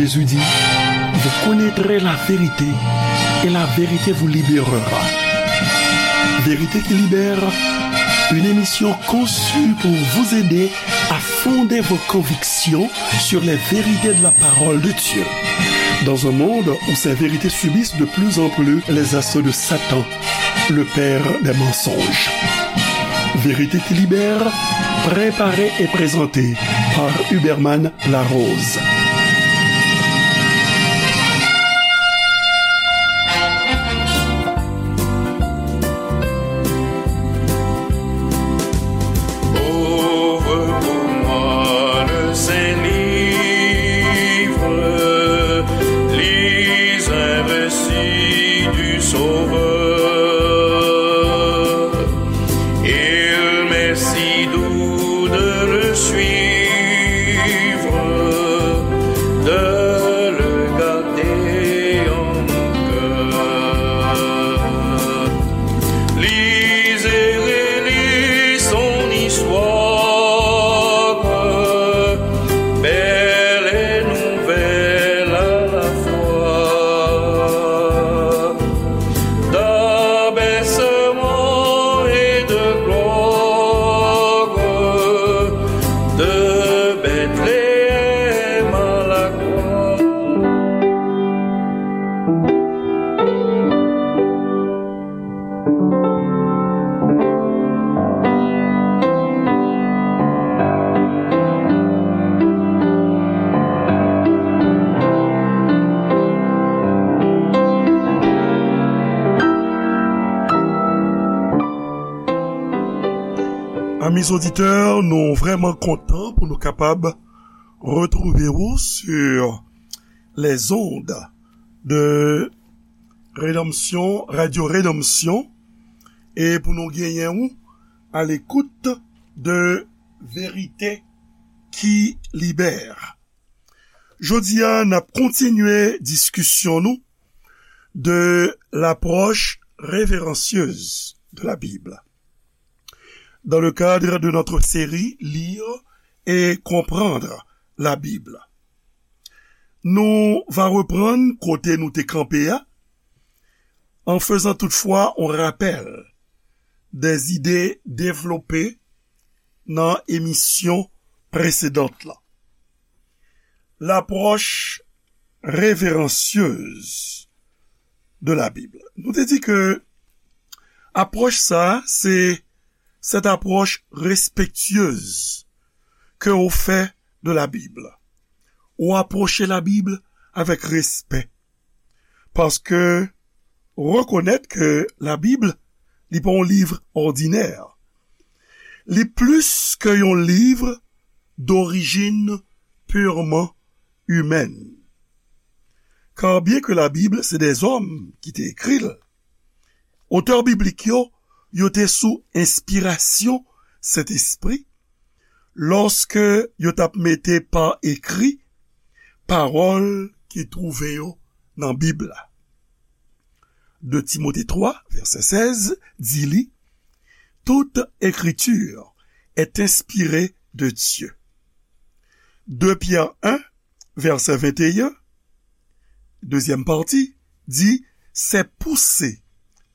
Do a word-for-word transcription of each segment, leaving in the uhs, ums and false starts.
Jésus dit, vous connaîtrez la vérité et la vérité vous libérera. Vérité qui libère, une émission conçue pour vous aider à fonder vos convictions sur les vérités de la parole de Dieu. Dans un monde où ces vérités subissent de plus en plus les assauts de Satan, le père des mensonges. Vérité qui libère, préparée et présentée par Huberman Larose. Ouvre pour moi le Saint-Livre, lis un récit du Sauveur. Il m'est si doux de le suivre, de le garder en mon cœur. Lis et relis son histoire, belle et nouvelle à la fois, d'abaissement et de gloire, de Bethléem à la croix. Amis auditeurs, nou vrèman kontan pou nou kapab retwouve w sur les ondes de Rédemption, Radio Rédemption, e pou nou genyen ou à l'écoute de Vérité qui libère. Jodi a, n ap kontinye diskisyon nou de l'approche révérencieuse de la Bible dans le cadre de notre série Lire et comprendre la Bible. Nou va reprann kote nou te kanpe a, en faisant toutefois un rappel des idées développées nan emisyon presedant la. L'approche révérencieuse de la Bible. Nou te di ke apwòch sa, se cette approche respectueuse que ou fè de la Bible. Ou apwoche la Bib avèk respè. Paske rekonèt ke la Bib, li pa yon liv òdinè. Li plis ke yon liv d'origine purement humaine. Car bien que la Bible, c'est des hommes qui t'écrit, otè biblik yo, yo te sou enspirasyon Sentespri, lòske yo t ap mete pa ekri pawòl ki twouve yo nan Bib la. De Timote twa, vèsè sèz, di li, toute écriture est inspirée de Dieu. De Pyè en, vèsè venteyen, dezyèm pati, di, c'est poussé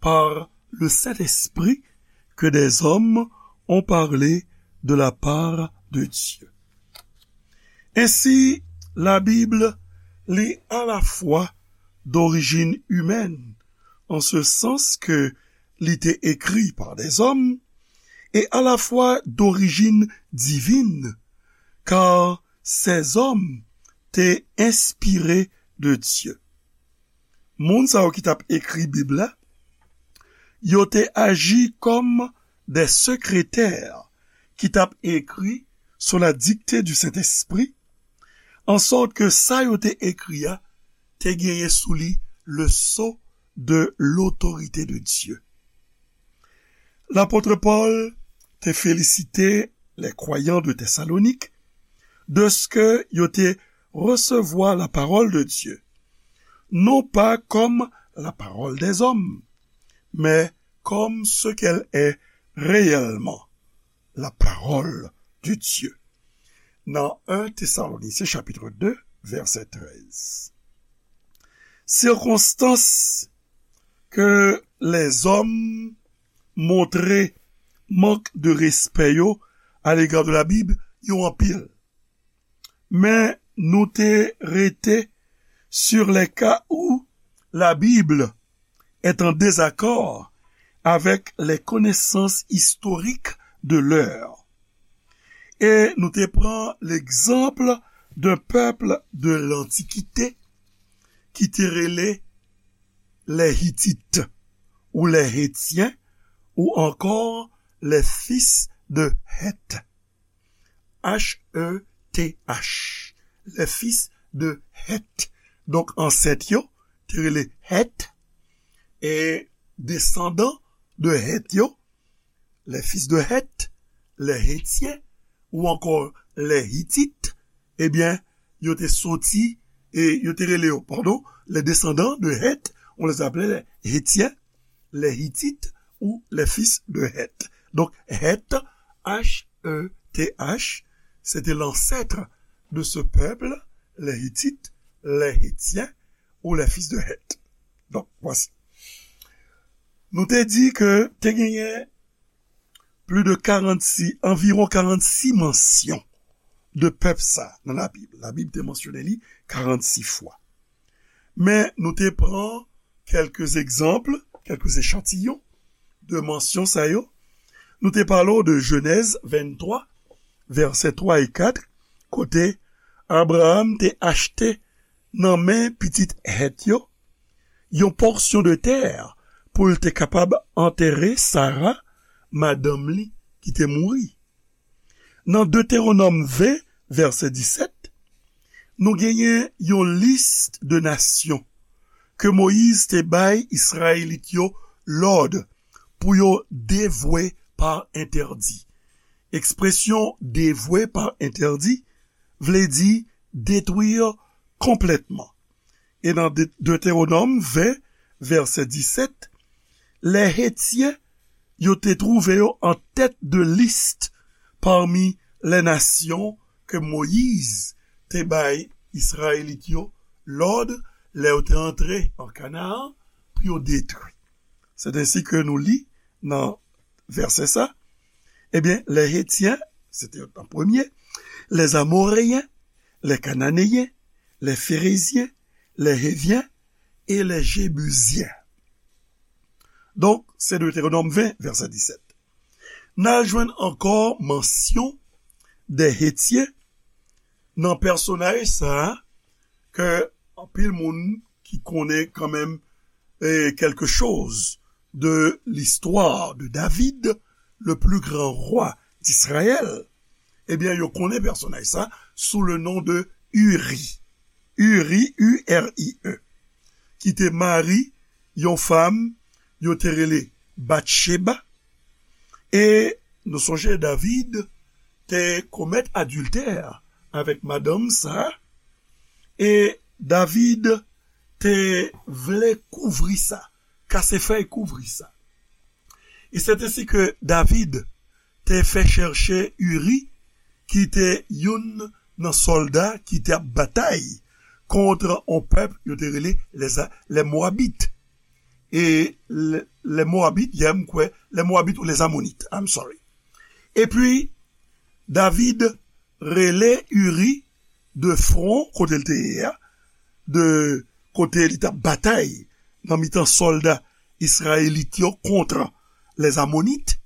par le Saint-Esprit que des hommes ont parlé de la part de Dieu. Ainsi, la Bible, li à la fois d'origine humaine, en ce sens que li te écrit par des hommes, et à la fois d'origine divine, car ces hommes te inspiré de Dieu. Moun sa yo ki t ap ekri Bib la, yo te aji kòm des secrétaires ki t ap ekri sous la dictée du Saint-Esprit, en sorte que sa yo te ekri a te genyen sou li le sceau de l'autorité de Dieu. Lapot Pòl te felisite les croyants de Thessalonique de ce que yo te resevwa la parole de Dieu, non pas comme la parole des hommes, mais comme ce qu'elle est réellement, la parole de Dieu. Nan en Thessaloniciens chapitre deux, vèsè trèz. Sikonstans ke lèzòm montre mank de respè yo à l'égard de la Bible, yo anpil. Men nou te rete sur les cas où la Bible est en désaccord avec les connaissances historiques de l'heure. E nou te pran l'exemple d'un peuple de l'Antiquité ki te rele les Hittites ou les Hétiens ou encore les fils de Heth. H E T H. Les fils de Heth. Donk, ansèt yo te rele Heth, e desandan de Heth yo, les fils de Heth, les Hétiens, ou encore les Hittites, ebyen, yo te soti, e yo te rele yo, pardon, les descendants de Heth, on les appelait les Hétiens, les Hittites ou les fils de Heth. Donc, Heth, H E T H, c'était l'ancêtre de ce peuple, les Hittites, les Hétiens ou les fils de Heth. Donc, voici. Nou te di ke te genyen plus de quarante-six, anviwon karannsis mansyon de pèp sa nan Labib. Labib te mansyone li karannsis fwa. Men nou te pran kèlke egzanp, kèlke echantiyon de mansyon sa yo. Nou te pale w de Jenèz venntwa, vèsè twa e kat, kote Abraram te achte nan men pitit Hèt yo yon pòsyon de tè pou l te kapab antere Sara, madanm li ki te mouri. Nan Detewonòm ven, vèsè disèt, nou genyen yon lis de nasyon ke Moyiz te bay Izrayelit yo lòd pou yo devwe pa entèdi. Ekspresyon devwe pa entèdi vle di detwi konplètman. E nan De-, Detewonòm ven, vèsè disèt, lè Hetyen yo te twouve yo an tèt de lis pami lè nasyon ke Moyiz te bay Izrayelit yo lòd lè yo te antre an Kanaan pou yo detwi. Se ensi ke nou li nan vèsè sa, ebyen, lè Hetyen, se te an premye, lè Amoreyen, lè Kananeyen, lè Ferezyen, lè Hevyen e lè Jebizyen. Donk, se Detewonòm ven, vèsè disèt. N a jwenn ankò mansyon de Hetyen nan pèsonaj sa a ke anpil moun ki konnen kanmenm, eh, quelque chose de l'histoire de David, le plus grand roi d'Israël, ebyen, yo konnen pèsonaj sa sou le non de Uri. Uri, U R I E, ki te mari yon fanm yo te rele Batcheba. E nou sonje David te komèt adiltè avèk madanm sa, e David te vle kouvri sa, kase fèy kouvri sa. E se ensi ke David te fè chèche Uri, ki te youn nan sòlda ki te ap batay kont yon pèp yo te rele les, les Moabites. E le, les Moabites, yè m kwè, les Moabites ou les Ammonites, I'm sorry. Epi, David rele Uri de fwon kote l te ye a, de kote li t ap batay nan mitan sòlda Izrayelit yo kont les Ammonites.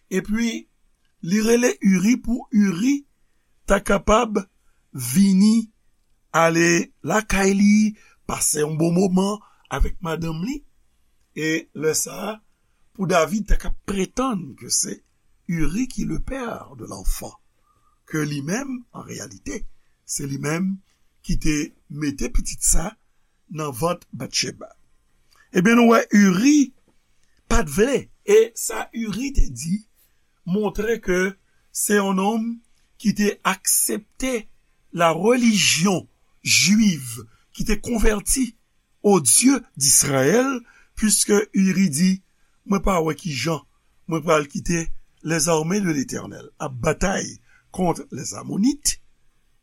Epi, li rele Uri pou Uri ta kapab vini ale lakay li, pase yon bon moman avèk madanm li. E lè sa a, pou David ta ka pretann ke se Uri ki le père de l'enfant, ke li menm, an reyalite, se li menm ki te mete pitit sa nan vant Batcheba. Ebyen, nou wè Uri pa t vle. E sa Uri te di montre ke se yon nonm ki te aksepte la religion juive, ki te konvèti au Dieu d'Israël, puisque Uri di, mwen pa wè ki jan mwen pral kite les armées de l'Éternel ap batay kont les Ammonites,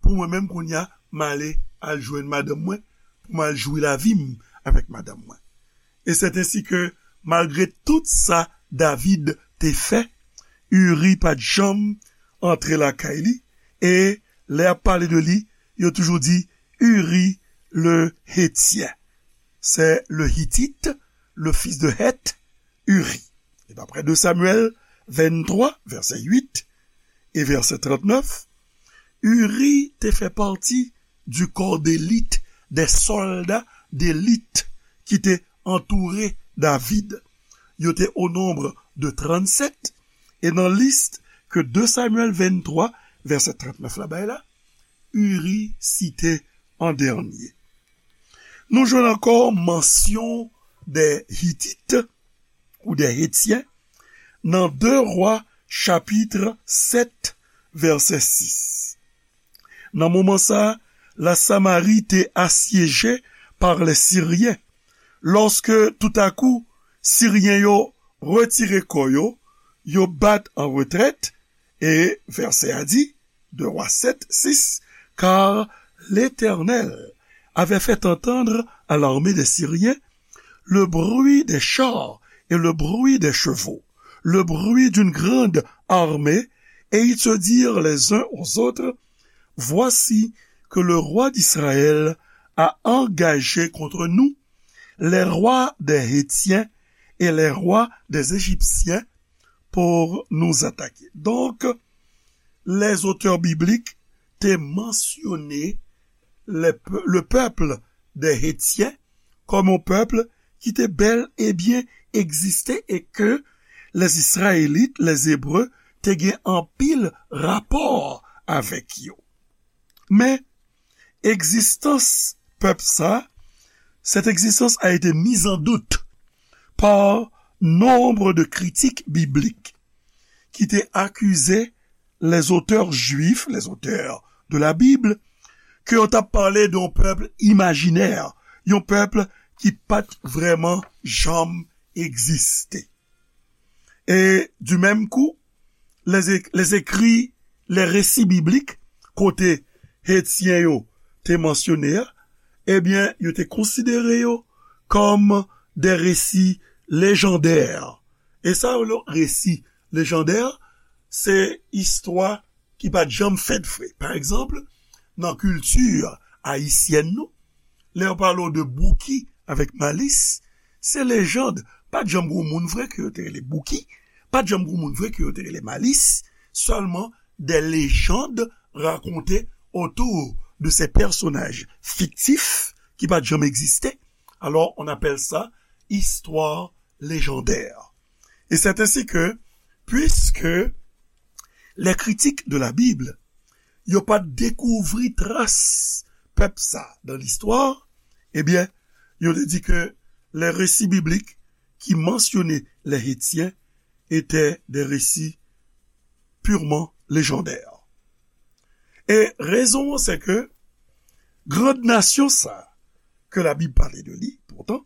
pou mwen menm kounye a, m ale al jwenn madanm mwen, pou m al jwi lavi m avèk madanm mwen. E sèt ensi ke, malgre tout sa David te fè, Uri pa t janm antre lakay li, e lè y ap pale de li, yo toujou di Uri le Hétien. C'est le Hittite, le fils de Heth, Uri. E daprè de Samyèl venntwa, vèsè uit e vèsè trannèf, Uri te fè pati du corps d'élite, des soldats d'élite ki te antoure David. Yo te o nonb de trannsèt, e nan lis ke de Samyèl venntwa, vèsè trannèf la bay la, Uri site an dènye. Nou jwenn ankò mansyon des Hittites ou des Hétiens nan de Wa chapit sèt, vèsè sis. Nan moman sa a, la Samari te asyeje pa lè Siryen. Lòske toutakou, Siryen yo retire kò yo, yo bat an retrèt, e vèsè a di, de Wa sèt, sis, car l'Éternel avait fait entendre à l'armée des Syriens le bruit des chars et le bruit des chevaux, le bruit d'une grande armée, et ils se dirent les uns aux autres, voici que le roi d'Israël a engagé contre nous les rois des Hétiens et les rois des Égyptiens pour nous attaquer. Donc, les auteurs bibliques te mansyone le, le peuple des Hétiens kòm yon pèp ki te bèl e byen egziste e ke les Israélites, les Hébreux, te gen anpil rapò avèk yo. Men, egzistans pèp sa, cette existence a été mise en doute par nombre de critiques bibliques qui te akize les auteurs juifs, les auteurs de la Bible, ke yo t ap pale de yon pèp imajinè, yon pèp ki pa t vrèman janm egziste. E du menm kou, les, les écrits, les récits bibliques, kote Hetyen yo te mansyone a, ebyen, yo te konsidere yo kòm des récits légendaires. E sa yo rele resi lejandè, se istwa ki pa t janm fèt vre. Pa egzanp, nan kilti ayisyèn nou, lè yo pale w de Bouki avèk Malis, se lejand. Pa t janm gen moun vre ke yo te rele Bouki, pa t janm gen moun vre ke yo te rele Malis, sèlman des légendes racontées autour de ces personnages fictifs ki pa t janm egziste. Alors, on appelle ça histoire légendaire. Et c'est ainsi que, puisque les critiques de la Bible, yo pa t dekouvri tras pèp sa dans l'histoire, ebyen, yo te di ke les récits bibliques ki mansyone les Hétiens étaient des récits purement légendaires. E rezon an, se ke grand nasyon sa, ke Labib pale de li, poutan,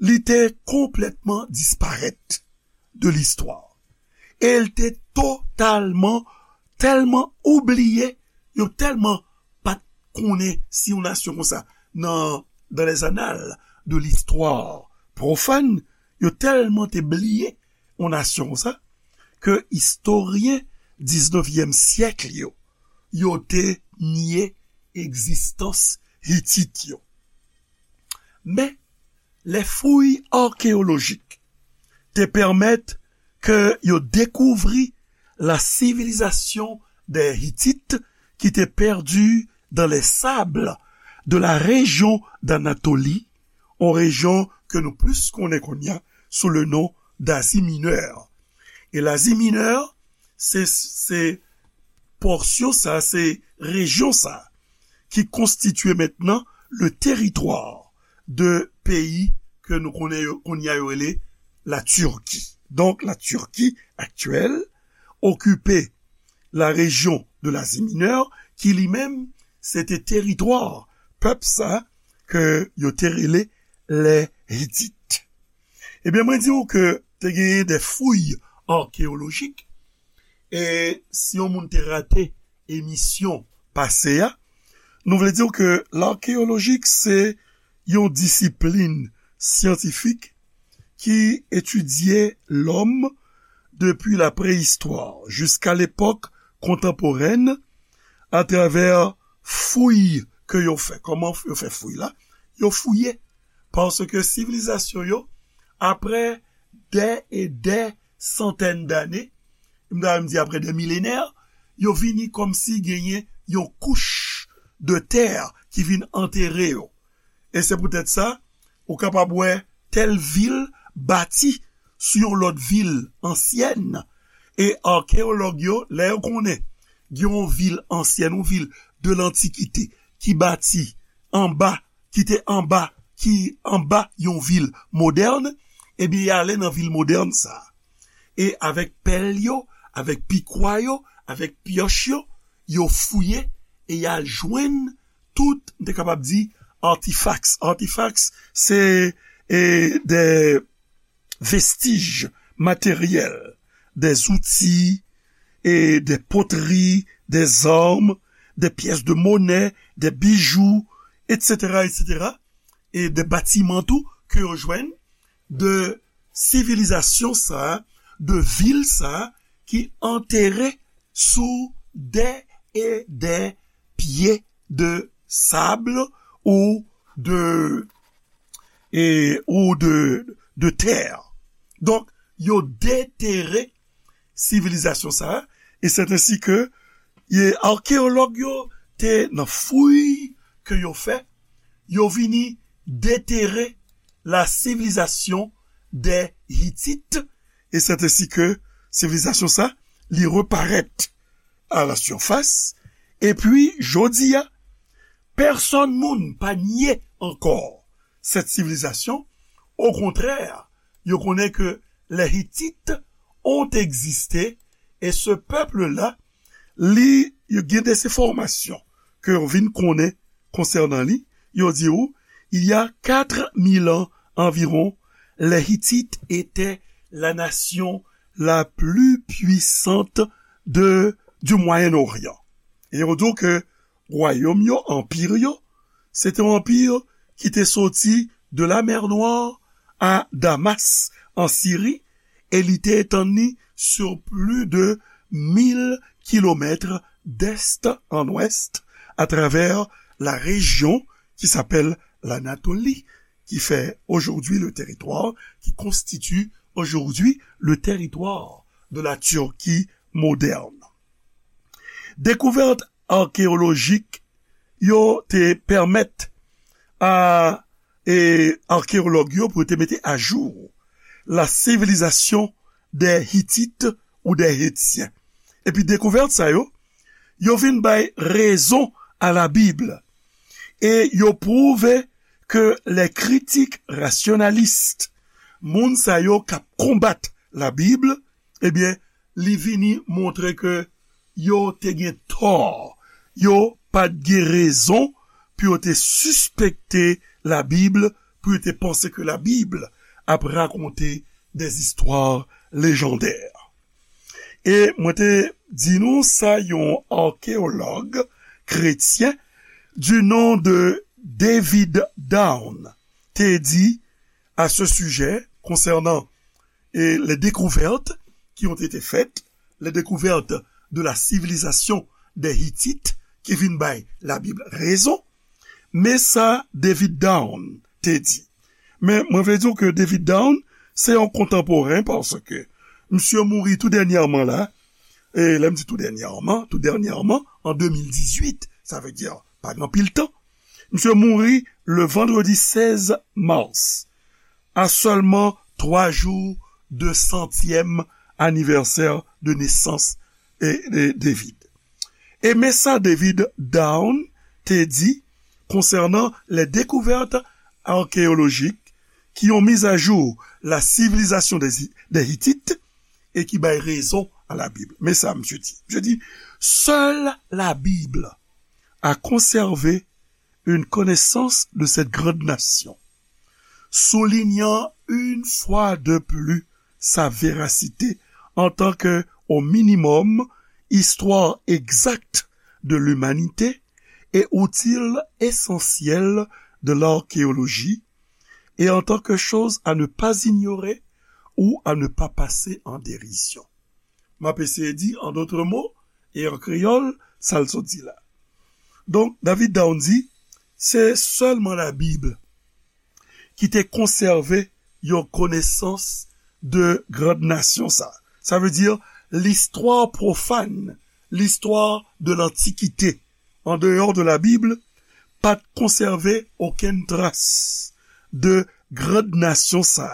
li te konplètman disparèt de listwa. E l te totalman, tèlman oubliye, yo tèlman pa t konnen si yon nasyon konsa nan, dans les annales de l'histoire profane, yo tèlman te bliye yon nasyon konsa, ke istoryen diznevyèm syèk yo, yo te nye egzistans Hitit yo. Men, les fouilles archéologiques te pèmèt ke yo dekouvri la civilisation des Hittites qui était perdue dans les sables de la région d'Anatolie, yon rejyon ke nou plis konnen kounye a sou le non d'Asie Mineure. E Lazi Minè, se, se pòsyon sa, se rejyon sa, ki konstitye mentnan le teritwa de peyi ke nou konnen yo, kounye a yo rele la Turquie. Donk, la Turquie actuelle occupait la région de l'Asie Mineure, ki li menm, se te teritwa pèp sa ke yo te rele les Hittites. Ebyen, mwen di w ke te genyen de fouilles archéologiques, e si yon moun te rate emisyon pase a, Nou vle di ke l'archéologique se yon disiplin syantifik ki etidye lòm depi la préhistoire jiska lepòk kontanporèn atravè fouy ke yo fè. Kòman yo fè fouy la? Yo fouye. Paske sivilizasyon yo, apre dè e dè santèn dane, m ta menm di apre dè milenè, yo vini kòmsi genyen yon kouch de tè ki vin antere yo. E se poutèt sa, ou kapab wè tèl vil bati sou yon lòt vil ansyèn. E akeyològ yo, lè yo konnen gen yon vil ansyèn, yon vil de lantikite ki bati anba, ki te anba, ki anba yon vil modèn, ebyen, y ale nan vil modèn sa a. E avèk pèl yo, avèk pikwa yo, avèk pyòch yo, yo fouye e y al jwenn tout, m te kapab di, artifacts. Artifacts, se e, de vestiges matériels, des outils, et des poteries, des armes, des pièces de monnaie, des bijoux, et cetera, et cetera, e de batiman tou ke yo jwenn de sivilizasyon sa a, de vil sa a ki antere sou dè e dè pye de sab ou de, e, ou de, de tè. Donk, yo detere sivilizasyon sa a, e se ensi ke e, akeyològ yo te nan fouy ke yo fè, yo vini detere la civilisation des Hittites, e se ensi ke sivilizasyon sa, li reparèt à la surface, epi jodi a, pèsonn moun pa nye ankò cette civilisation. Au contraire, yo konnen ke les Hittites ont existé, e ce peuple-là, li, yo gen des informations ke yo vin konnen konsènan li, yo di ou, il y a quatre mille ans environ, les Hittites étaient la nation la plus puissante de, du Moyen-Orient. E yo di ke wayòm yo, anpir yo, se te yon anpir ki te soti de la mer Noire à Damas, en Syrie, e li te etann li sur plus de mille kilomètres d'est en ouest, à travers la région qui s'appelle l'Anatolie, qui fait aujourd'hui le territoire, qui constitue aujourd'hui le territoire de la Turquie moderne. Dekouvèt akeyolojik yo te pèmèt a, e, akeyològ yo pou yo te mete ajou la civilisation des Hittites ou des Hittiens. Epi dekouvèt sa yo, yo vin bay rezon à la Bible. E yo pwouve ke les critiques rationalistes, moun sa yo k ap konbat la Bible, ebyen, li vini montre ke yo te gen tò. Yo pa t gen rezon pou yo te sispekte la Bible, pou yo te panse ke la Bible ap rakonte des histoires légendaires. E mwen te di nou sa yon akeyològ kretyen du nom de David Down te di à ce sujet concernant, e, les découvertes qui ont été faites, les découvertes de la civilisation des Hittites, ki vin bay la Bib rezon. Men sa David Down te di. Men mwen vle di w ke David Down se yon kontanporen paske misye mouri tou dènyèman la. E lè m di tou dènyèman, tou dènyèman, an de mil dizuit, sa vle di pa gen anpil tan. Misye mouri le vendredi seize mars, à seulement trois jours de centième anniversaire de naissance de, de David. E men sa David Down te di konsènan les découvertes archéologiques qui ont mis à jour la civilisation des, des Hittites et qui bay rezon à la Bible. Men sa misye di. Misye di, seule la Bible a conservé une connaissance de cette grande nation, soulignant une fois de plus sa véracité en tant que, au minimum, histoire exacte de l'humanité et outils essentiels de l'archéologie et en tant que choses à ne pas ignorer ou à ne pas passer en dérision. M ap eseye di, en d'autres mots, e an kreyòl, sa l sot di la. Donk, David Down di, se sèlman Labib ki te konsève yon konesans de grann nasyon sa. Sa vle di, listwa pwofàn, listwa de lantikite, an deyò de Labib, pa t konsève okenn tras de grann nasyon sa,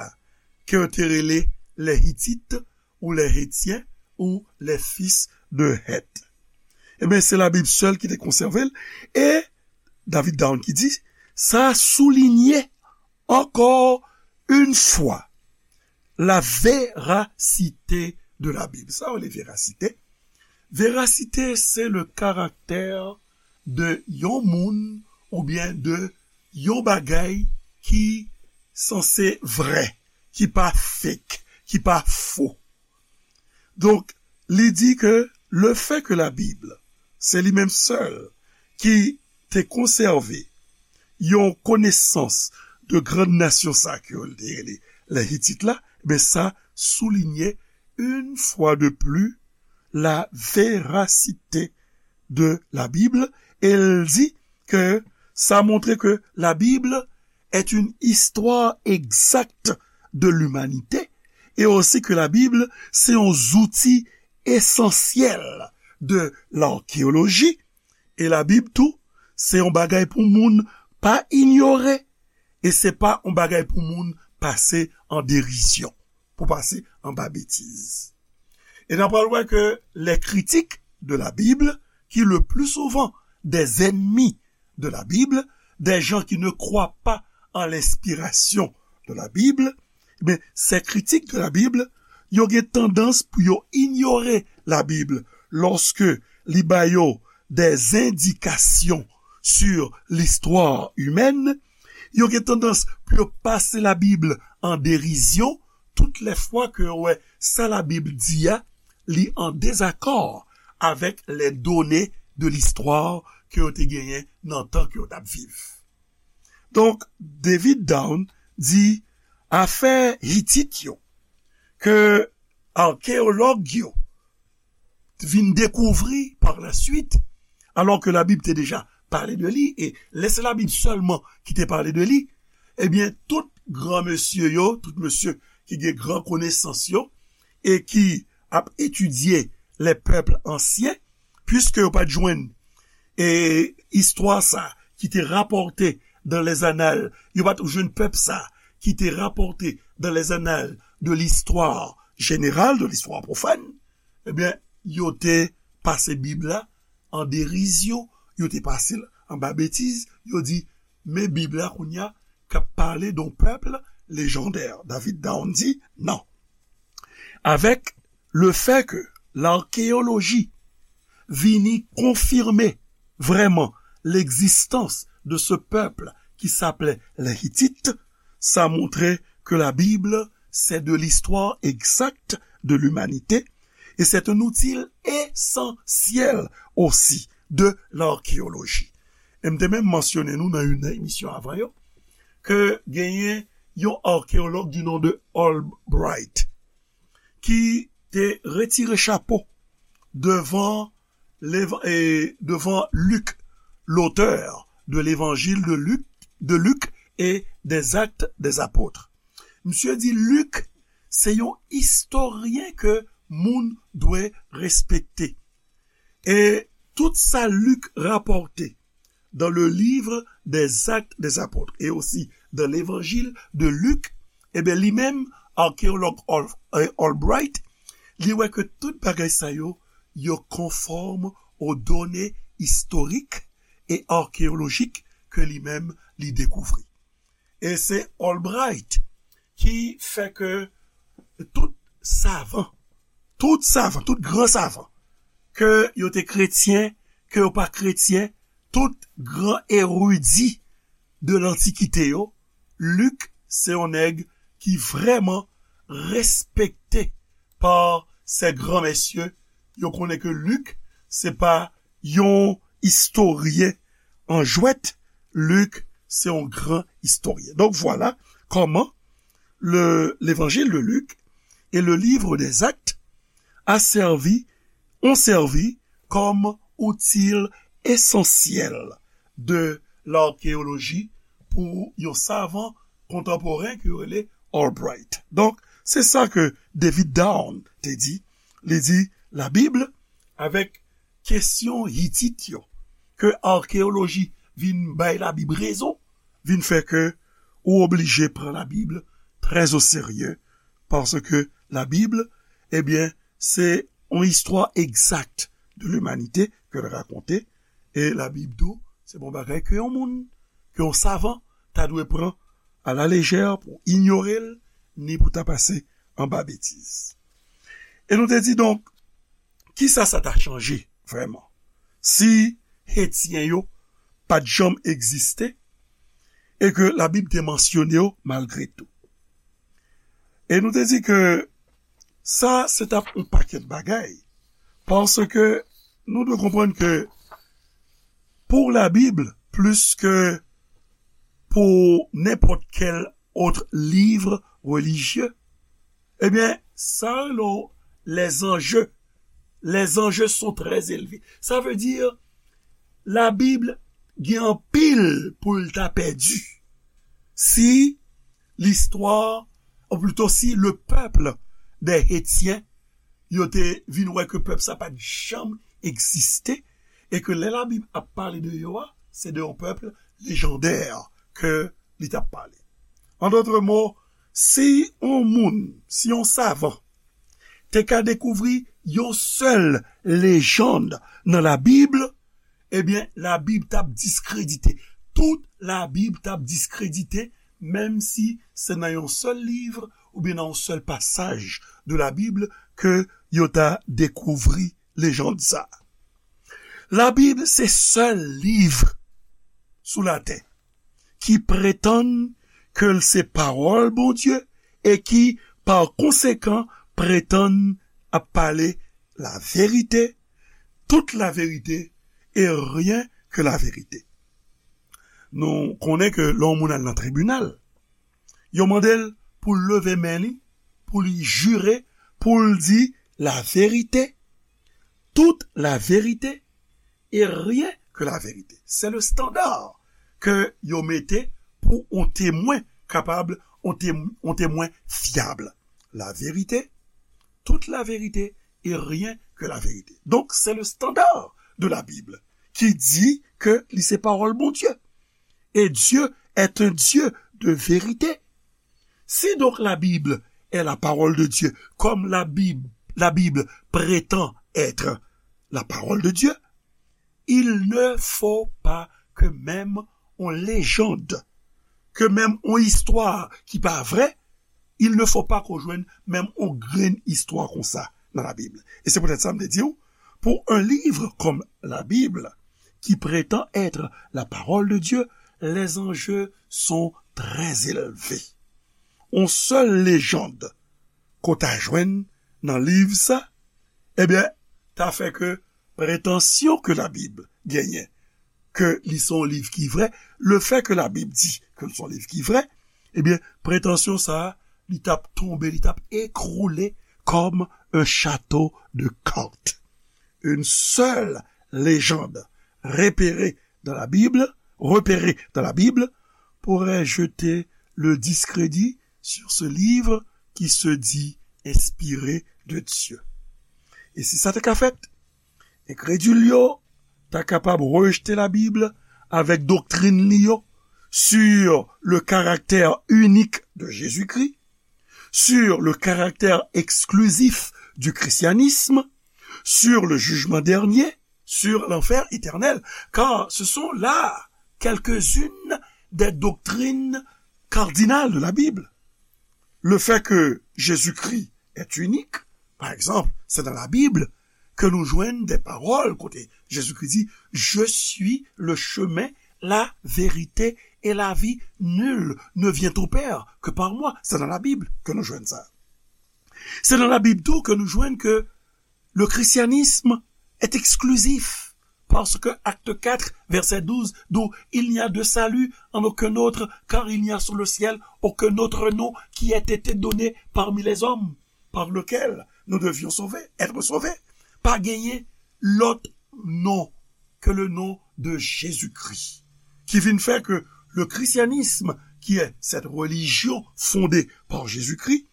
ke yo te rele les Hittites ou les Hétiens ou les fils de Heth. Ebyen, se Labib sèl ki te konsève l, e David Down ki di, sa soulinye encore une fois la véracité de la Bible. Sa yo rele verasite. Verasite, se le caractère de yon moun oubyen de yon bagay ki sanse vrè, ki pa fake, ki pa fo. Donk, li di ke le fait que la Bible, se li menm sèl ki te konsève yon konesans de grann nasyon sa ke yo te rele les Hittites la, ben sa soulinye une fois de plus la véracité de la Bible, e l di ke sa montre ke la Bible est une histoire exacte de l'humanité, et aussi que la Bible, c'est un outil essentiel de l'archéologie, e Labib tou, se yon bagay pou moun pa inyore, e se pa yon bagay pou moun pase an derizyon, pou pase anba betiz. E n ap pral wè ke les critiques de la Bible, qui le plus souvent des ennemis de la Bible, des gens qui ne croient pas en l'inspiration de la Bible, ben, ces critiques de la Bible, yo gen tandans pou yo inyore Labib lòske li ba yo des indications sur l'histoire humaine. Yo gen tandans pou yo pase Labib an derizyon tout lè fwa ke yo wè sa Labib di a, li an dezakò avèk les données de l'histoire ke yo te genyen nan tan ke yo t ap viv. Donk, David Down di afè Hitit yo, ke akeyològ yo vin dekouvri par la suite, alò ke Labib te deja pale de li, e lè se Labib sèlman ki te pale de li, ebyen, tout gran mesye yo, tout mesye ki gen gran konesans yo, e ki ap etidye les peuples anciens, puiske yo pa t jwenn, e, istwa sa ki te rapòte dans les annales, yo pa t jwenn pèp sa ki te rapòte dans les annales de l'histoire générale, de l'histoire profane, ebyen, yo te pase Bib la an derizyon, yo te pase l anba betiz, yo di, men Bib la kounye a k ap pale d'un peuple légendaire. David Down di, non. Avec le fait que l'archéologie vini konfime vrèman l'existence de ce peuple qui s'appelait les Hittites, sa montre ke Labib, c'est de l'histoire exacte de l'humanité, et c'est un outil essentiel aussi de l'archéologie. E m te menm mansyone nou nan youn nan emisyon avan yo, ke genyen yon akeyològ du nom de Albright, ki te retire chapo devan, e, devan Lik, l'auteur de l'évangile de Luc, de Luc et des Actes des Apôtres. Misye di Lik se yon istoryen ke moun dwe respekte. E tout sa Lik rapòte dans le livre des Actes des Apôtres et aussi dans l'évangile de Luc, ebyen, li menm, akeyològ Al-, eh, Albright, li wè ke tout bagay sa yo, yo konfòm aux données historiques et archéologiques ke li menm li dekouvri. E se Albright ki fè ke tout savan, tout savan, tout gran savan, ke yo te kretyen, ke yo pa kretyen, tout gran eridi de lantikite yo, Lik se yon nèg ki vrèman respekte pa sè gran mesye. Yo konnen ke Lik se pa yon istoryen an jwèt, Lik se yon gran istoryen. Donk, vwala kòman le, l'évangile de Luc et le livre des Actes a servi, ont servi comme outil essentiel de l'archéologie pou yon savan kontanporen ki rele Albright. Donk, se sa ke David Down te di. Li di, Labib, avèk kesyon Hitit yo, ke akeyoloji vin bay Labib rezon, vin fè ke ou oblije pran Labib trè o serye, paske Labib, ebyen, se yon istwa egzak de limanite ke l rakonte, e Labib tou, se pa yon bagay ke yon moun, ke yon savan, ta dwe pran a la lejè pou inyore l, ni pou ta pase anba betiz. E nou te di, donk, kisa sa ta chanje vrèman si etyen yo pa t janm egziste e ke Labib te mansyone yo malgre tou? E nou te di ke sa, se t ap yon pakèt bagay, paske nou dwe konprann ke pou Labib, plis ke pou nenpòt kèl ot liv relijye, ebyen, sa rele w les enjeux. Les enjeux sont très élevés. Sa vle di, Labib gen anpil pou l ta pèdi si listwa, ou plito si le peuple des Hétiens, yo te vin wè ke pèp sa pa t janm egziste, e ke lè Labib ap pale de yo a, se de yon pèp lejandè ke li t ap pale. An dòt mo, si yon moun, si yon savan te ka dekouvri yon sèl lejann nan Labib, ebyen, Labib t ap diskredite. Tout Labib t ap diskredite, menm si se nan yon sèl liv oubyen nan yon sèl pasaj de Labib ke yo ta dekouvri lejann sa. Labib se sèl liv sou latè ki pretann ke l se pawòl Bondye e ki, pa konsekan, pretann ap pale la vérité, toute la vérité et rien que la vérité. Nou konnen ke lè yon moun al nan tribinal, yo mande l pou l leve men li, pou li jire, pou l di la vérité, toute la vérité et rien que la vérité. C'est le standard ke yo mete pou yon temwen kapab, yon tem-, yon temwen fyab. La vérité, toute la vérité et rien que la vérité. Donc, c'est le standard de la Bible qui dit que li se pawòl Bondye. Et Dieu est un Dieu de vérité. Si donc la Bible est la parole de Dieu, comme la Bible, la Bible prétend être la parole de Dieu, il ne faut pas que même on légende, ke menm yon istwa ki pa vrè, il ne faut pas qu'on jwenn menm yon grenn istwa konsa nan Labib. E se poutèt sa m te di w, pour un livre comme la Bible, qui prétend être la parole de Dieu, les enjeux sont très élevés. Yon sèl lejann ke w ta jwenn nan liv sa, ebyen, ta fè ke pretansyon ke Labib genyen, ke li se yon liv ki vrè, le fait que la Bible dit que l se yon liv ki vrè, ebyen, pretansyon sa a, li t ap tonbe, li t ap ekroule comme un château de cartes. Une seule légende repérée dans la Bible, repérée dans la Bible, pourrait jeter le discrédit sur ce livre qui se dit inspiré de Dieu. E si sa te ka fèt, enkredil yo ta kapab rejte Labib avèk doktrin li yo sur le caractère unique de Jésus-Christ, sur le caractère exclusif du christianisme, sur le jugement dernier, sur l'enfer éternel, car ce sont là quelques-unes des doctrines cardinales de la Bible. Le fait que Jésus-Christ est unique, par exemple, c'est dans la Bible que nous joignons des paroles, kote Jésus-Christ dit, Je suis le chemin, la vérité et la vie. Nul ne vient au Père que par moi. C'est dans la Bible que nous joignons ça. Se nan Labib tou ke nou jwenn ke le christianisme est exclusif parce que acte quatre, verset douze, d'où il n'y a de salut en aucun autre, car il n'y a sous le ciel aucun autre nom qui ait été donné parmi les hommes, par lequel nous devions sauver, être sauvés. Pa genyen lòt non ke le non de Jezikri, ki vin fè ke le christianisme, qui est cette religion fondée par Jésus-Christ,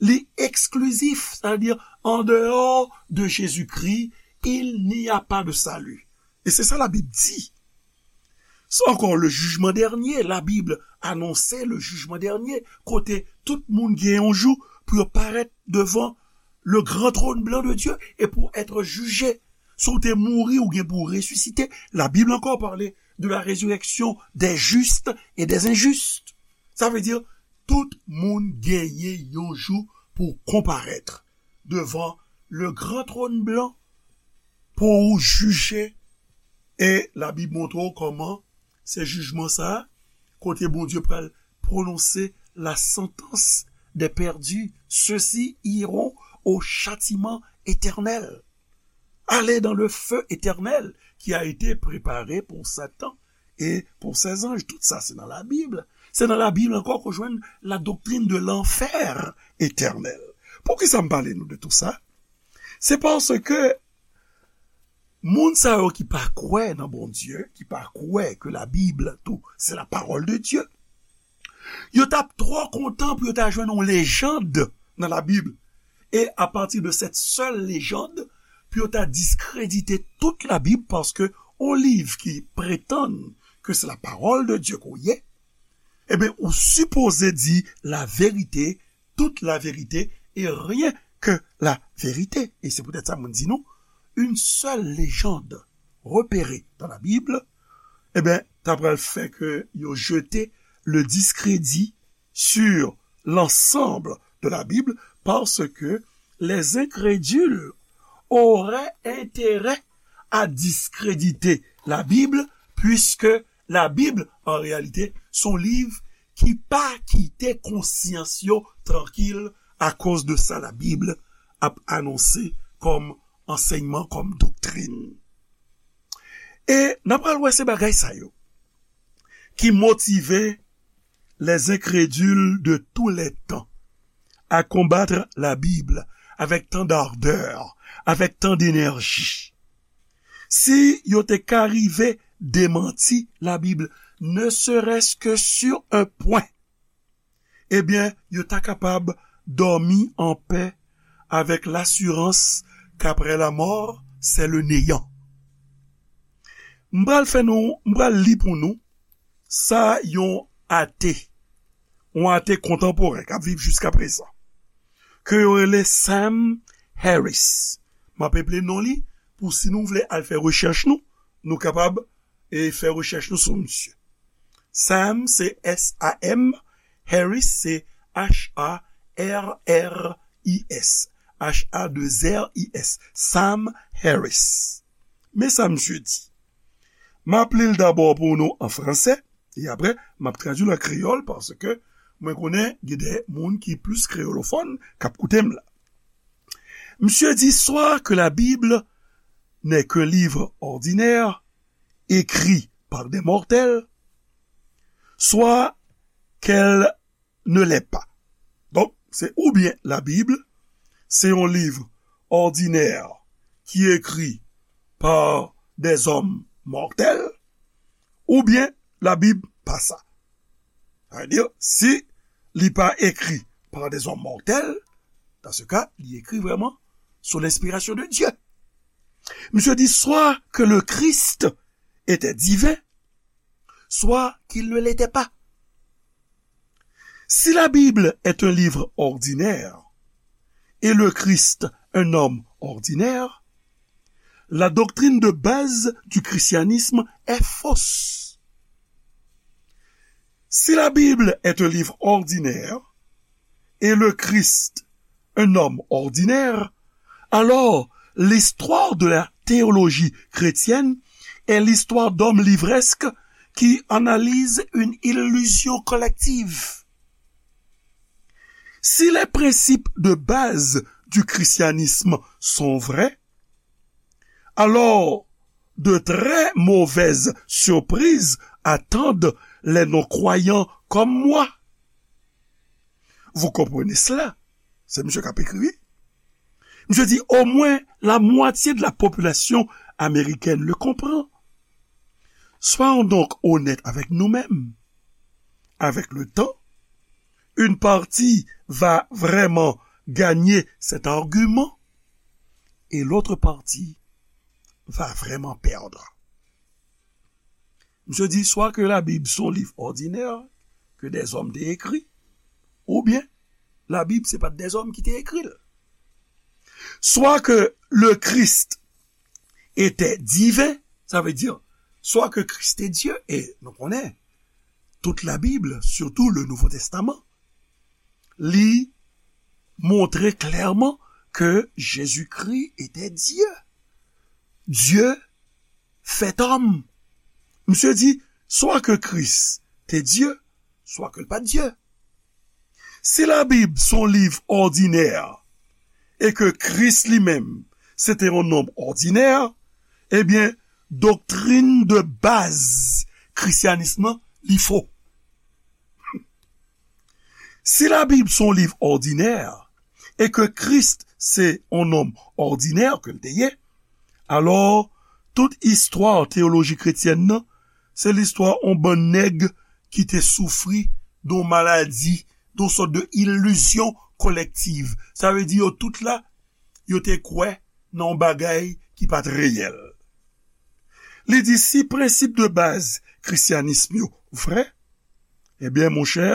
li eksklizif, c'est-à-dire en dehors de Jésus-Christ, il n'y a pas de salut. E se sa Labib di. Se ankò le jijman dènye, Labib anonse le jijman dènye, kote tout moun gen yon jou pou yo parèt devan le grand trône blanc de Dieu et pour être jugé. Si w te mouri, ou gen pou resisite. Labib ankò pale de la résurrection des justes et des injustes. Sa vle di, tout moun genyen yon jou pou konparèt devan le grand trône blanc pou ou jije. E Labib montre w kòman se jijman sa a, kote Bondye pral pwononse la sentence des perdus, ceux-ci iront au châtiment éternel. Aller dans le feu éternel qui a été préparé pour Satan et pour ses anges. Tout sa, se nan Labib. Se nan Labib ankò ke w jwenn la doctrine de l'enfer éternel. Poukisa m pale nou de tout sa? Se paske moun sa yo ki pa kwè nan Bondye, ki pa kwè ke Labib tou, se la parole de Dieu, yo t ap twò kontan pou yo ta jwenn yon lejand nan Labib, e apati de cette seule légende, pou yo ta diskredite tout Labib, paske yon liv ki pretann ke se la parole de Dieu ke w ye, ebyen, ou sipoze di la vérité, toute la vérité et rien que la vérité. E se poutèt sa mwen di nou, une seule légende repérée dans la Bible, ebyen, ta pral fè ke yo jete le discrédit sur l'ensemble de la Bible, parce que les incrédules auraient intérêt à discréditer la Bible, puisque la Bible, en réalité, se yon liv ki pa kite konsyans yo trankil. Akoz de sa, Labib ap anonse kòm ansèyman, kòm doktrin. E n ap pral wè se bagay sa yo ki motive les incrédules de tous les temps à combattre la Bible avec tant d'ardeur, avec tant d'énergie. Si yo te ka rive demanti Labib, ne serait-ce que sur un point, ebyen, yo ta kapab dòmi an pè avec l'assurance qu'après la mort, c'est le néant. M pral fè nou, m pral li pou nou sa yon ate, yon ate kontanporen k ap viv jiskaprezan, ke yo rele Sam Harris. M ap eple non li pou si nou vle al fè rechèch nou, nou kapab e fè rechèch nou sou misye. Sam, se S A M, Harris, se H A R R I S. H A deux R I S. Sam Harris. Men sa misye di. M ap li l dabò pou nou an fransè, e apre, m ap tradui l an kreyòl, paske mwen konnen gen de moun ki plis kreyolofòn k ap koute m la. Misye di, soit que la Bible n'est qu'un livre ordinaire, écrit par des mortels, soit qu'elle ne l'est pas. Donk, se oubyen Labib, se yon liv òdinè ki ekri pa dèzòm mòtèl, oubyen Labib pa sa. Sa vle di, si li pa ekri pa dèzòm mòtèl, dans ce cas, li ekri vrèman sous l'inspiration de Dieu. Misye di, soit que le Christ était divin, soit qu'il ne l'était pas. Si la Bible est un livre ordinaire et le Christ un homme ordinaire, la doctrine de base du christianisme est fausse. Si la Bible est un livre ordinaire et le Christ un homme ordinaire, alors l'histoire de la théologie chrétienne est l'histoire d'hommes livresques qui analysent une illusion collective. Si les principes de base du christianisme sont vrais, alors De très mauvaises surprises attendent les non-croyants comme moi. Vous comprenez cela? Se misye k ap ekri, wi. Misye di, au moins la moitié de la population américaine le comprend. Soyons donc honnêtes avec nous-mêmes. Avec le temps, une partie va vraiment gagner cet argument et l'autre partie va vraiment perdre. Misye di, swa ke Labib se yon liv òdinè ke dèzòm te ekri, oubyen Labib se pa t dèzòm ki te ekri l. Soit que le Christ était divin, ça veut dire, soit que Christ est Dieu, e nou konnen, tout la Bible, surtout le Nouveau Testament, li montre clairement que Jésus-Christ était Dieu. Dieu fait homme. Misye di, swa ke Kris te Dye, swa ke l pa t Dye. Si Labib se yon liv òdinè, e ke Kris li menm, se te yon nonm òdinè, ebyen, doktrin de baz krisyanis lan, li fo. Si Labib se yon liv òdinè, e ke Kris se yon nonm òdinè ke l te ye, alò, tout istwa teyoloji kretyèn nan, se listwa yon bann nèg ki te soufri de yon maladi, de yon sòt de ilizyon kolektiv. Sa vle di yo tout la, yo te kwè nan yon bagay ki pa t reyèl. Li di, si prensip de baz krisyanis yo vrè, ebyen, monchè,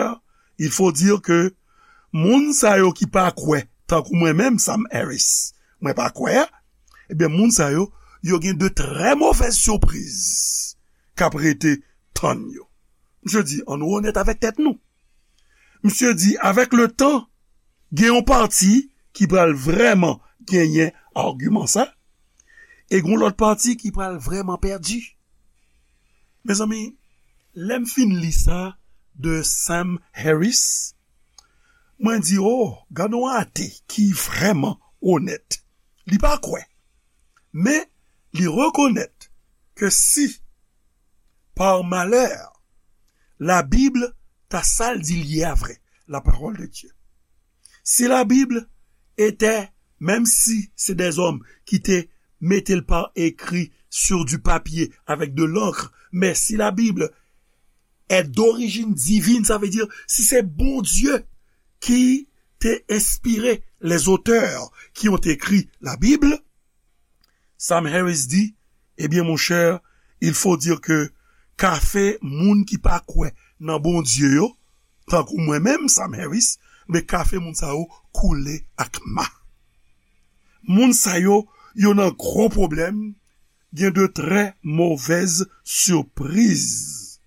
il faut dire que moun sa yo ki pa kwè, tankou mwen menm, Sam Harris, mwen pa kwè a, ebyen, moun sa yo, yo gen de très mauvaises surprises k ap rete tann yo. Misye di, ann nou onèt avèk tèt nou. Misye di, avec le temps, gen yon pati ki pral vrèman genyen agiman sa, e gen yon lòt pati ki pral vrèman pèdi. Mezanmi, lè m fin li sa de Sam Harris, mwen di, oh, gade yon ate ki vrèman onèt. Li pa kwè, men li rekonèt ke si, par malheur, la Bible ta sa l di l ye a vrè, la parole de Dieu. Si la Bible était, menm si se dèzòm ki te mete l pa ekri sur du papier avec de l'encre, mais si la Bible est d'origine divine, sa vle di, si se Bondye ki te enspire les auteurs qui ont écrit la Bible, Sam Harris di, ebyen, monchè, il faut dire que kafe moun ki pa kwè nan Bondye yo, tankou mwen menm, Sam Harris, men kafe moun sa yo koule ak ma. Moun sa yo, yo nan gwo pwoblèm, gen de très mauvaises surprises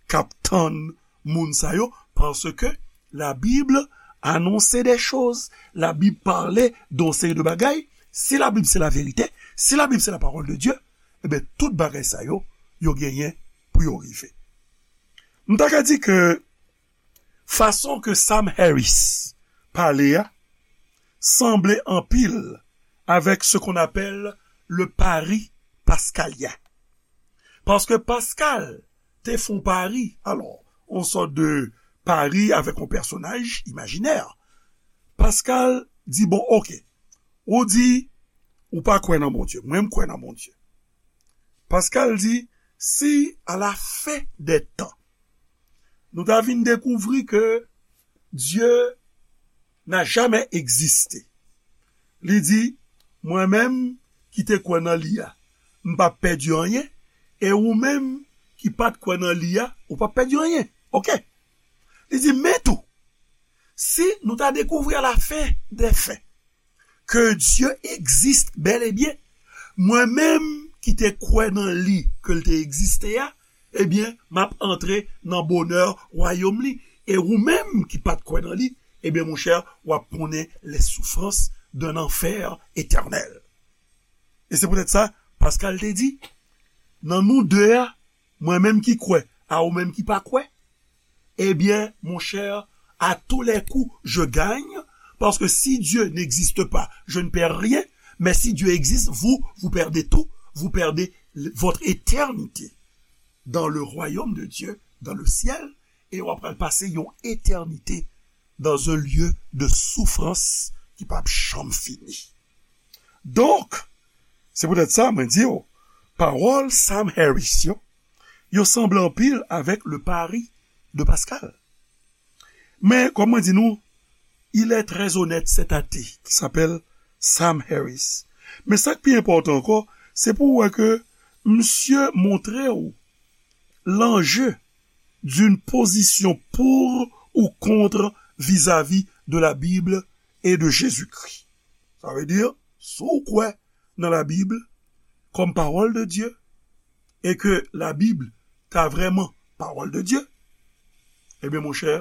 k ap tann moun sa yo, paske la Bible annonce des choses, la Bible parle de yon seri de bagay. Si la Bible c'est la vérité, si la Bible c'est la parole de Dieu, ebyen, tout bagay sa yo, yo genyen pou yo rive. M ta ka di ke fason ke Sam Harris pale a sanble anpil avec ce qu'on appelle le pari pascalien. Paske Pascal te fè yon pari, alò, yon sòt de pari avèk yon pèsonaj imajinè. Pascal di, bon, oke, ou di ou pa kwè nan Bondye, mwen m kwè nan Bondye. Pascal di, si à la fin des temps, nou ta vin dekouvri ke Dieu n'a jamais existé. Li di, mwen menm ki te kwè nan li a, m p ap pèdi anyen, e ou menm ki pa t kwè nan li a, ou p ap pèdi anyen. Oke? Li di, men tou, si nou ta dekouvri à la fin des fins, que Dieu existe bel et bien, mwen menm ki te kwè nan li ke l te egziste a, ebyen, m ap antre nan bonè wayòm li. E ou menm ki pa t kwè nan li, ebyen, monchè, w ap konnen les souffrances d'un enfer éternel. E se poutèt sa, Pascal te di, nan nou de a, mwen menm ki kwè, a ou menm ki pa kwè, eh bien, mon cher, à tous les coups, je gagne, parce que si Dieu n'existe pas, je ne perds rien, mais si Dieu existe, vous, vous perdez tout, vous perdez votre éternité dans le royaume de Dieu, dans le ciel, e w ap pral pase yon etènite dans un lieu de souffrance ki p ap janm fini. Donk, se poutèt sa mwen di w, pawòl Sam Harris yo, yo sanble anpil avèk le pari de Pascal. Men, kòm mwen di nou, il est très honnête, cet athée qui s'appelle Sam Harris. Men sa k pi enpòtan ankò, se pou w wè ke misye montre w l'enjeu d'une position pour ou contre vis-à-vis de la Bible et de Jésus-Christ. Sa vle di, si w kwè nan Labib kòm pawòl de Dye, e ke Labib ta vrèman pawòl de Dye, ebyen, monchè,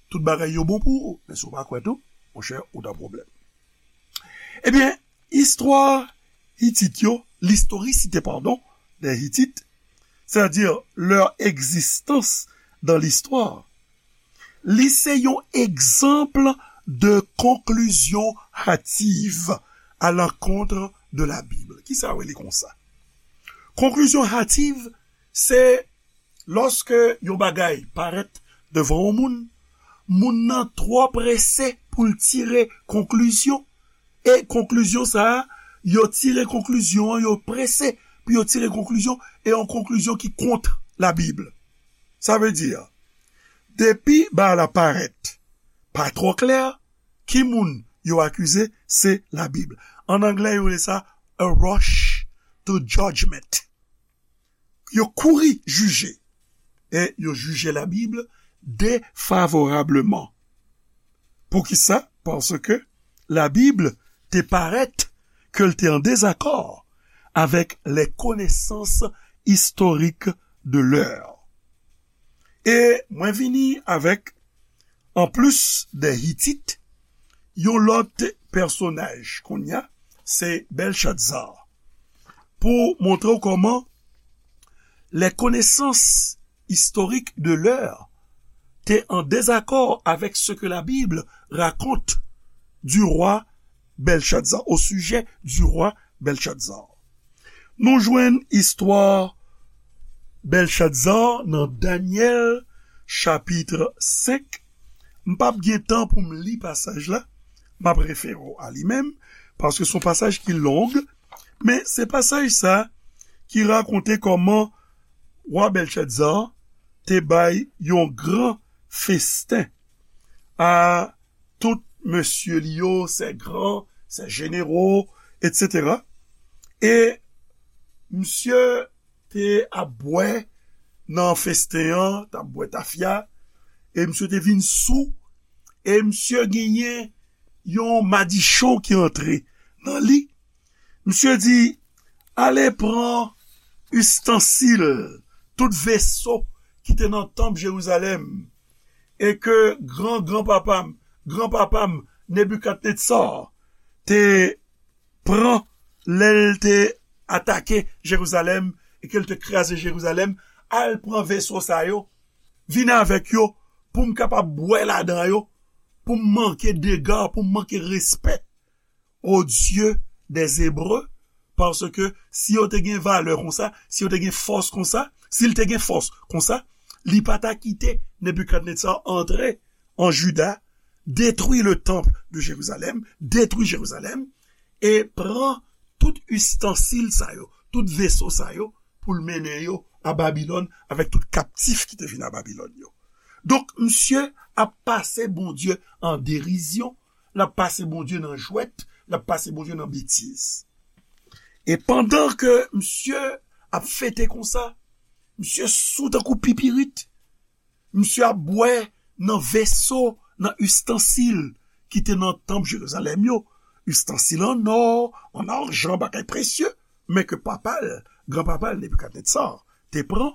tout bagay yo bon pou ou. Men si w pa kwè tou, monchè, ou nan pwoblèm. Ebyen, istwa Hitit yo, l'historicité, pardon, des Hittites, c'est-à-dire leur existence dans l'histoire, li se yon egzanp de conclusion hâtive à l'encontre de la Bible. Kisa yo rele konsa? Conclusion hâtive, se lòske yon bagay parèt devan yon moun, moun nan twò prese pou l tire konklizyon, e konklizyon sa a, yo tire konklizyon an, yo prese pou yo tire konklizyon, e yon konklizyon ki kont Labib. Sa vle di, depi bagay la parèt pa twò klè, ki moun yo akize? Se Labib. An anglè, yo rele sa a rush to judgment. Yo kouri jije. E yo jije Labib defavorableman. Poukisa? Paske Labib te parèt ke l te an dezakò avèk les connaissances historiques de l'heure. E mwen vini avèk, anplis de Hitit, yon lòt pèsonaj kounye a, se Bèlchatzar. Pou montre w kòman les connaissances historiques de l'heure te an dezakò avèk ce que la Bible raconte du roi Belshazzar, au sujet du roi Belshazzar. Nou jwenn istwa Belshazzar nan Danyèl chapit senk. M p ap gen tan pou m li pasaj la, m ap refere w a li menm, paske se yon pasaj ki long, men se pasaj sa ki rakonte kòman wa Belshazzar te bay yon gran festen a tout mesye li yo, ses grands, ses généraux, et cetera. E misye te ap bwè nan festen an, t ap bwè tafya, e misye te vin sou, e misye genyen yon madichon ki antre nan li. Misye di, ale pran istansil, tout veso ki te nan tanp Jerizalèm, e ke gran granpapa m, granpapa m, Nebikadnetsa, te pran lè l te atake Jerizalèm e ke l te kraze Jerizalèm, al pran veso sa yo, vin avèk yo pou m kapab bwè ladan yo, pou m manke dega, pou m manke respè au Dieu des Hébreux, paske si yo te gen valè konsa, si yo te gen fòs konsa, si l te gen fòs konsa, li pa ta kite Nebikadnetsa antre an Jida, détruit le temple de Jérusalem, détruit Jérusalem, e pran tout istansil sa yo, tout veso sa yo, pou l mennen yo a Babilòn avèk tout kaptif ki te vin a Babilòn yo. Donk, misye ap pase Bondye an derizyon, l ap pase Bondye nan jwèt, l ap pase Bondye nan betiz. E pandan ke misye ap fete konsa, misye sou tankou pipirit, misye ap bwè nan veso, nan istansil ki te nan tanp Jerizalèm yo, istansil an nò, an ajan, bagay presye, men ke papa l, granpapa l, Nebikadnetsa, te pran.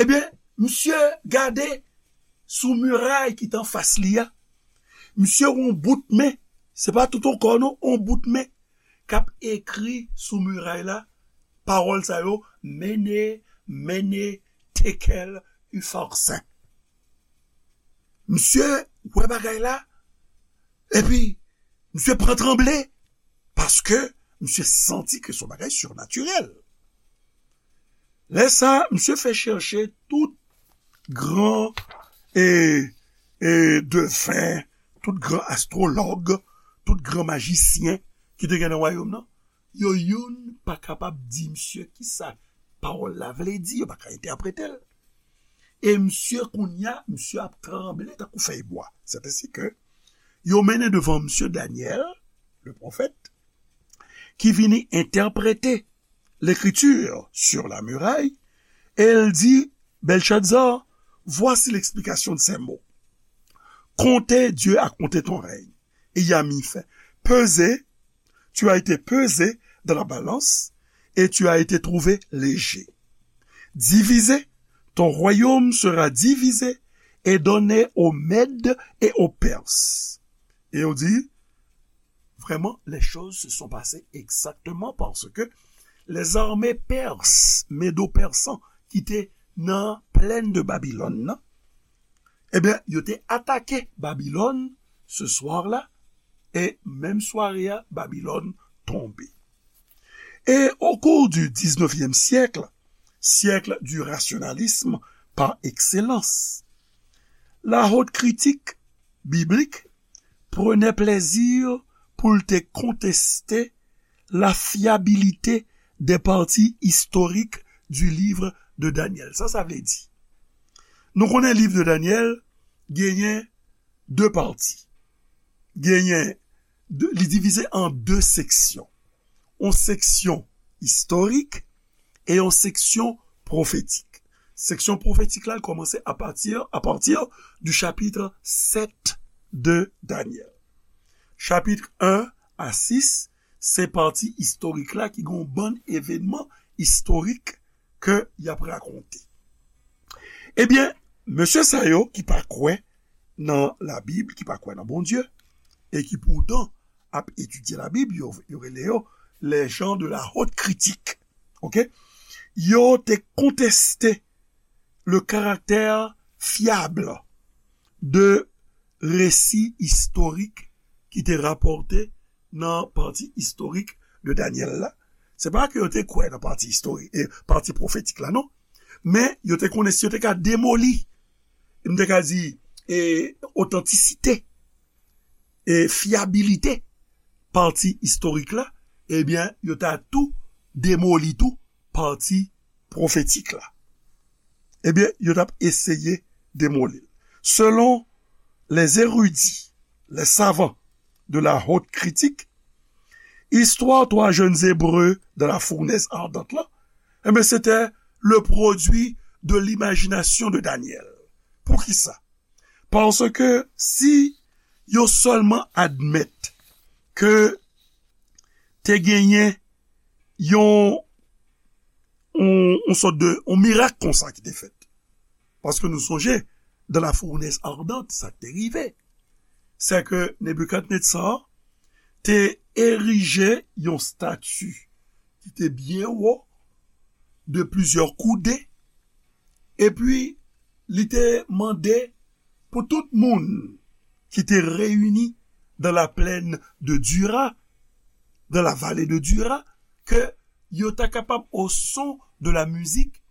Ebyen, misye gade sou miray ki t anfas li a. Misye wè yon bout men, se pa tout yon kò non, yon bout men k ap ekri sou miray la, pawòl sa yo, Mene, Mene, Tekel, Ufarsin. Misye wè bagay la, epi misye pran tranble, paske misye santi ke se yon bagay sirnatirèl. Lè sa, misye fè chèche tout gran e, e deven, tout gran astwològ, tout gran majisyen ki te gen nan wayòm nan. Yo youn pa kapab di misye kisa pawòl la vle di, yo pa ka entèprete l. E misye kounye a, misye ap tranble tankou fèy bwa. C'est ainsi que yo mennen devan misye Danyèl, le pwofèt, ki vini entèprete l'écriture sur la muraille, et il dit, Belshazzar, voici l'explication de ces mots. Compter, Dieu a compté ton règne, et il a mis fin. Pesé, tu as été pesé dans la balance, et tu as été trouvé léger. Divisé, ton royaume sera divisé et donné aux Mèdes et aux Perses. Et on dit, vraiment, les choses se sont passées exactement parce que les armées perses, médo-persan, ki te nan plèn de Babylone, nan, ebyen, yo te atake Babylone ce soir-là, e menm sware a, Babylone tonbe. Et au cours du dix-neuvième siècle, siècle du rationalisme par excellence, la haute critique biblique prenait plaisir pou l te konteste la fiabilité des parties historiques du livre de Daniel. Sa sa vle di? Nou konnen liv de Daniel genyen de pati. Genyen de, li divize an de seksyon. Yon seksyon istorik e yon seksyon pwofetik. Seksyon pwofetik la kòmanse à partir, à partir du chapitre sept de Daniel. Chapit un à six, se pati istorik la ki gen yon bann evenman istorik ke y ap rakonte. Ebyen, mesye sa yo ki pa kwè nan Labib, ki pa kwè nan Bondye, e ki poutan ap etidye Labib, yo, yo rele yo les gens de la haute critique. Ok? Yo te konteste le caractère fiable de resi istorik ki te rapòte nan pati istorik de Danyèl la. Se pa ke yo te kwè nan pati istorik, e pati pwofetik la, non. Men yo te konnen si yo te ka demoli, m te ka di, e otantisite, e fyabilite pati istorik la, ebyen, yo ta tou demoli tou pati pwofetik la. Ebyen, yo t ap eseye demoli l. Selon les érudits, les savants de la haute critique, istwa twa jèn Ebre dans la fournaise ardente la, ebyen, se te le produit de l'imagination de Daniel. Poukisa? Paske si yo sèlman admèt ke te genyen yon, yon, yon sòt de, yon mirak konsa ki te fèt. Paske nou sonje, dans la fournaise ardente, sa k te rive, se ke Nebikadnetza te erije yon stati ki te byen wo, de plizyè koudè, epi li te mande pou tout moun ki te reyini dans la plaine de Dura, dans la vallée de Dura, ke yo ta kapab, au son de la musique,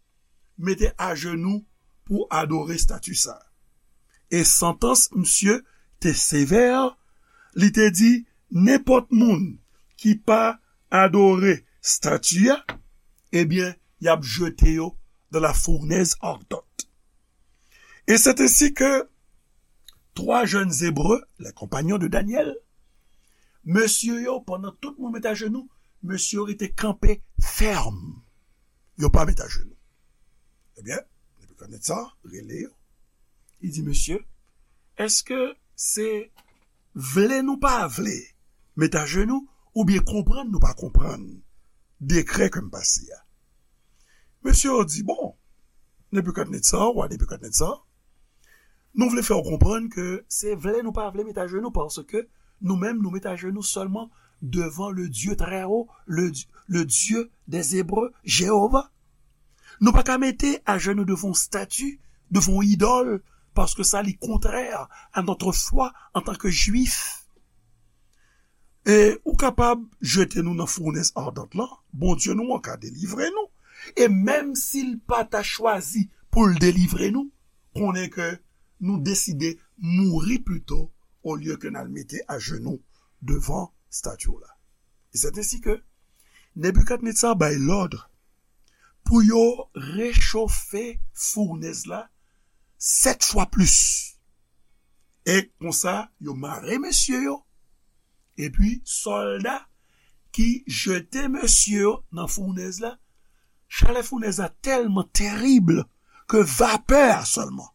mete ajenou pou adore stati sa. E santans misye te sevè, li te di, nenpòt moun ki pa adore stati a, ebyen, y ap jete yo dans la fournaise ardente. Et c'est ainsi que trois jeunes Hébreux, les compagnons de Daniel, mesye yo, pandan tout moun met ajenou, mesye yo rete kanpe fèm. Yo pa met ajenou. Ebyen, Nebikadnetza rele yo. Li di, mesye, èske se vle nou pa vle met ajenou, oubyen konprann nou pa konprann dekrè ke m pase a? Mesye yo di, bon, Nebikadnetza, wa Nebikadnetza, nou vle fè w konprann ke se vle nou pa vle met ajenou, paske nou menm, nou met ajenou sèlman devan le Dieu très haut, le, le Dieu des Hébreux, Jewova. Nou pa ka mete ajenou devan yon stati, devan yon idòl, paske sa li kontrè a notre foi en tant que Juif. E ou kapab jete nou nan founès ardant lan, Bondye nou an ka delivre nou. E menm si l pa ta chwazi pou l delivre nou, konnen ke nou deside mouri pito olye ke n al mete ajenou devan stati w la. E se ensi ke Nebikadnetsa bay lòd pou yo rechofe founèz la sèt fwa plis. E konsa, yo mare mesye yo, epi sòlda ki jete mesye yo nan founèz la, chalè founèz la tèlman terib ke vapè a sèlman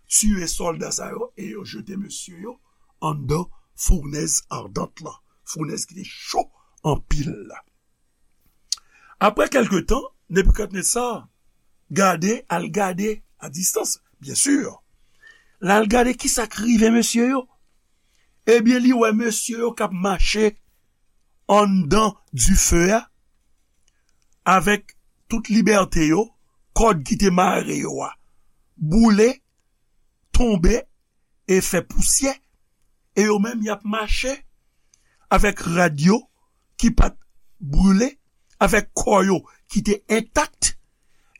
tiye sòlda sa yo e yo jete mesye yo anndan founèz ardant lan, founèz ki te cho anpil la. Apre kèlke tan, Nebikadnetsa gade, al gade a distans, byen si. L al gade kisa k rive mesye yo. Ebyen, li wè mesye yo k ap mache anndan dife a, avèk tout libète yo, kòd ki te mare yo a boule, tonbe e fè pousyè, e yo menm y ap mache avèk rad yo ki pa t brile, avèk kò yo ki te entak,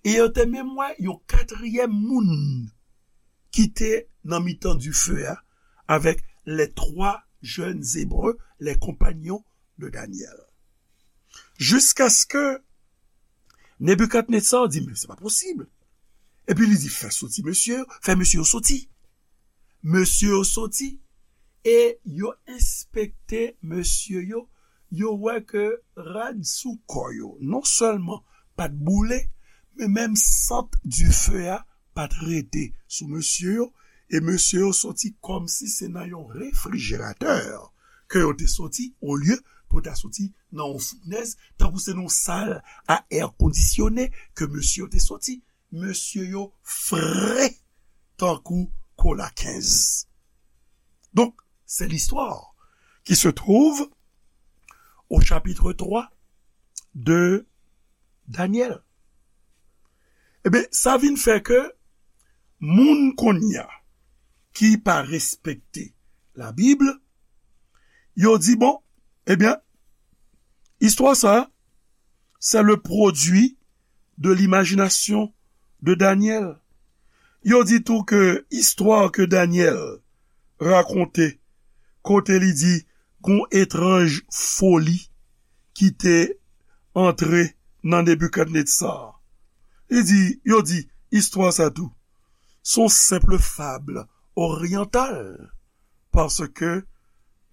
e yo te menm wè yon katriyèm moun ki te nan mitan dife a avèk les trois jeunes Hébreux, les compagnons de Daniel. Jiskaske Nebikadnetsa di, "Men se pa posib." Epi li di, "Fè soti mesye yo, fè mesye yo soti." Mesye yo soti e yo enspekte mesye yo, yo wè ke rad sou kò yo non sèlman pa t boule, men menm sant dife a pa t rete sou mesye yo, e mesye yo soti kòmsi se nan yon refrijeratè ke yo te soti, olye pou ta soti nan yon founèz, tankou se nan yon sal a è kondisyone ke mesye yo te soti. Mesye yo fre tankou kola kenz. Donc, c'est l'histoire qui se trouve au chapitre trois de Daniel. Ebyen, sa vin fè ke moun kounye a ki pa respekte Labib, yo di, bon, ebyen, istwa sa, c'est le produit de l'imagination de Daniel. Yo di tou ke istwa ke Daniel rakonte, kote li di gon etranj foli ki te antre nan Nebikadnetsa. Li di, yo di, istwa sa tou, se yon senp fab oryantal, paske,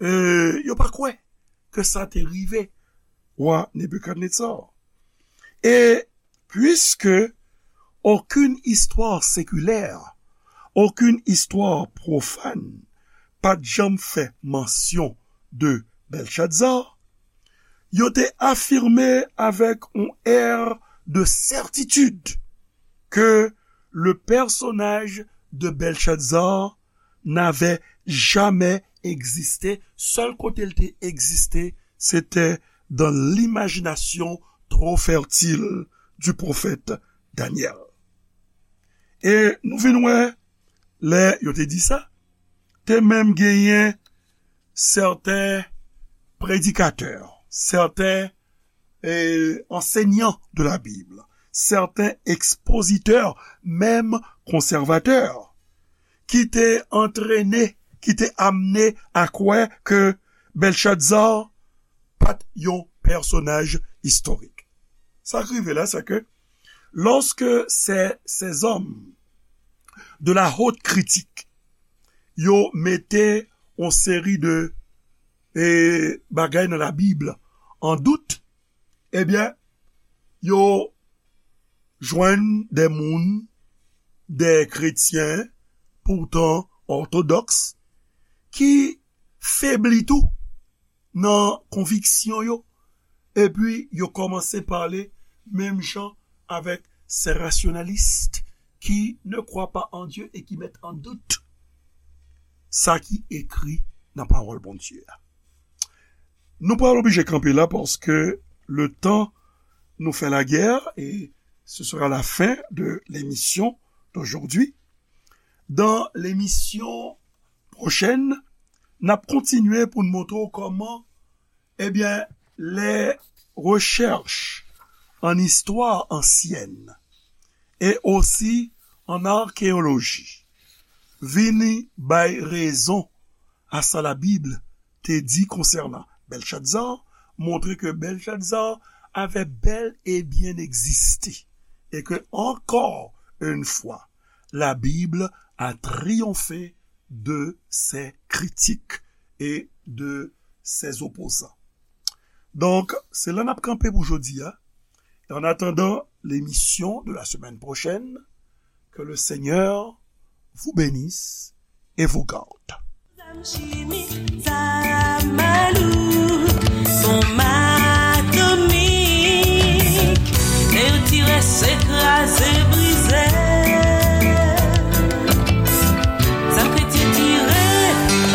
e, yo pa kwè ke sa te rive wa Nebikadnetsa. Et puisque aucune histoire séculaire, aucune histoire profane, pa t janm fè mansyon de Belshazzar, yo te afime avèk yon air de certitude que le personnage de Belshazzar n'avait jamais existé. Sèl kote l te egziste, se te dans l'imagination trop fertile du prophète Daniel. E nou vin wè, lè yo te di sa, te menm genyen sèten predikatè, sèten, e, ansenyan de la Bib, sèten ekspozitè, menm konsèvatè, ki te antrene, ki te amne a kwè ke Belshazzar pa t yon pèsonaj istorik. Sa k rive la, se ke lorsque ces, ces hommes de la haute critique, yo mete yon seri de, e, bagay nan Labib an dout, ebyen, yo jwenn de moun, de kretyen, poutan òtodòks, ki febli tou nan konviksyon yo, epi yo kòmanse pale menm jan avèk ces rationalistes qui ne croient pas en Dieu et qui mettent en doute sa ki ekri nan pawòl Bondye a. Nou pral oblije kanpe la paske le tan nou fè lagè, et ce sera la fin de l'émission d'aujourd'hui. Dans l'émission prochèn, n ap kontinye pou n montre w kòman, ebyen, les recherches an istwa ansyèn e osi an akeyoloji vini bay rezon a sa Labib te di konsènan Bèlchatzar, montre ke Bèlchatzar avè bèl e byen egziste e ke, ankò yon fwa, Labib a triyonfe de ses critiques et de ses opposants. Donk, se la n ap kanpe pou jodi a. En attendant l'émission de la semaine prochaine, que le Seigneur vous bénisse et vous garde.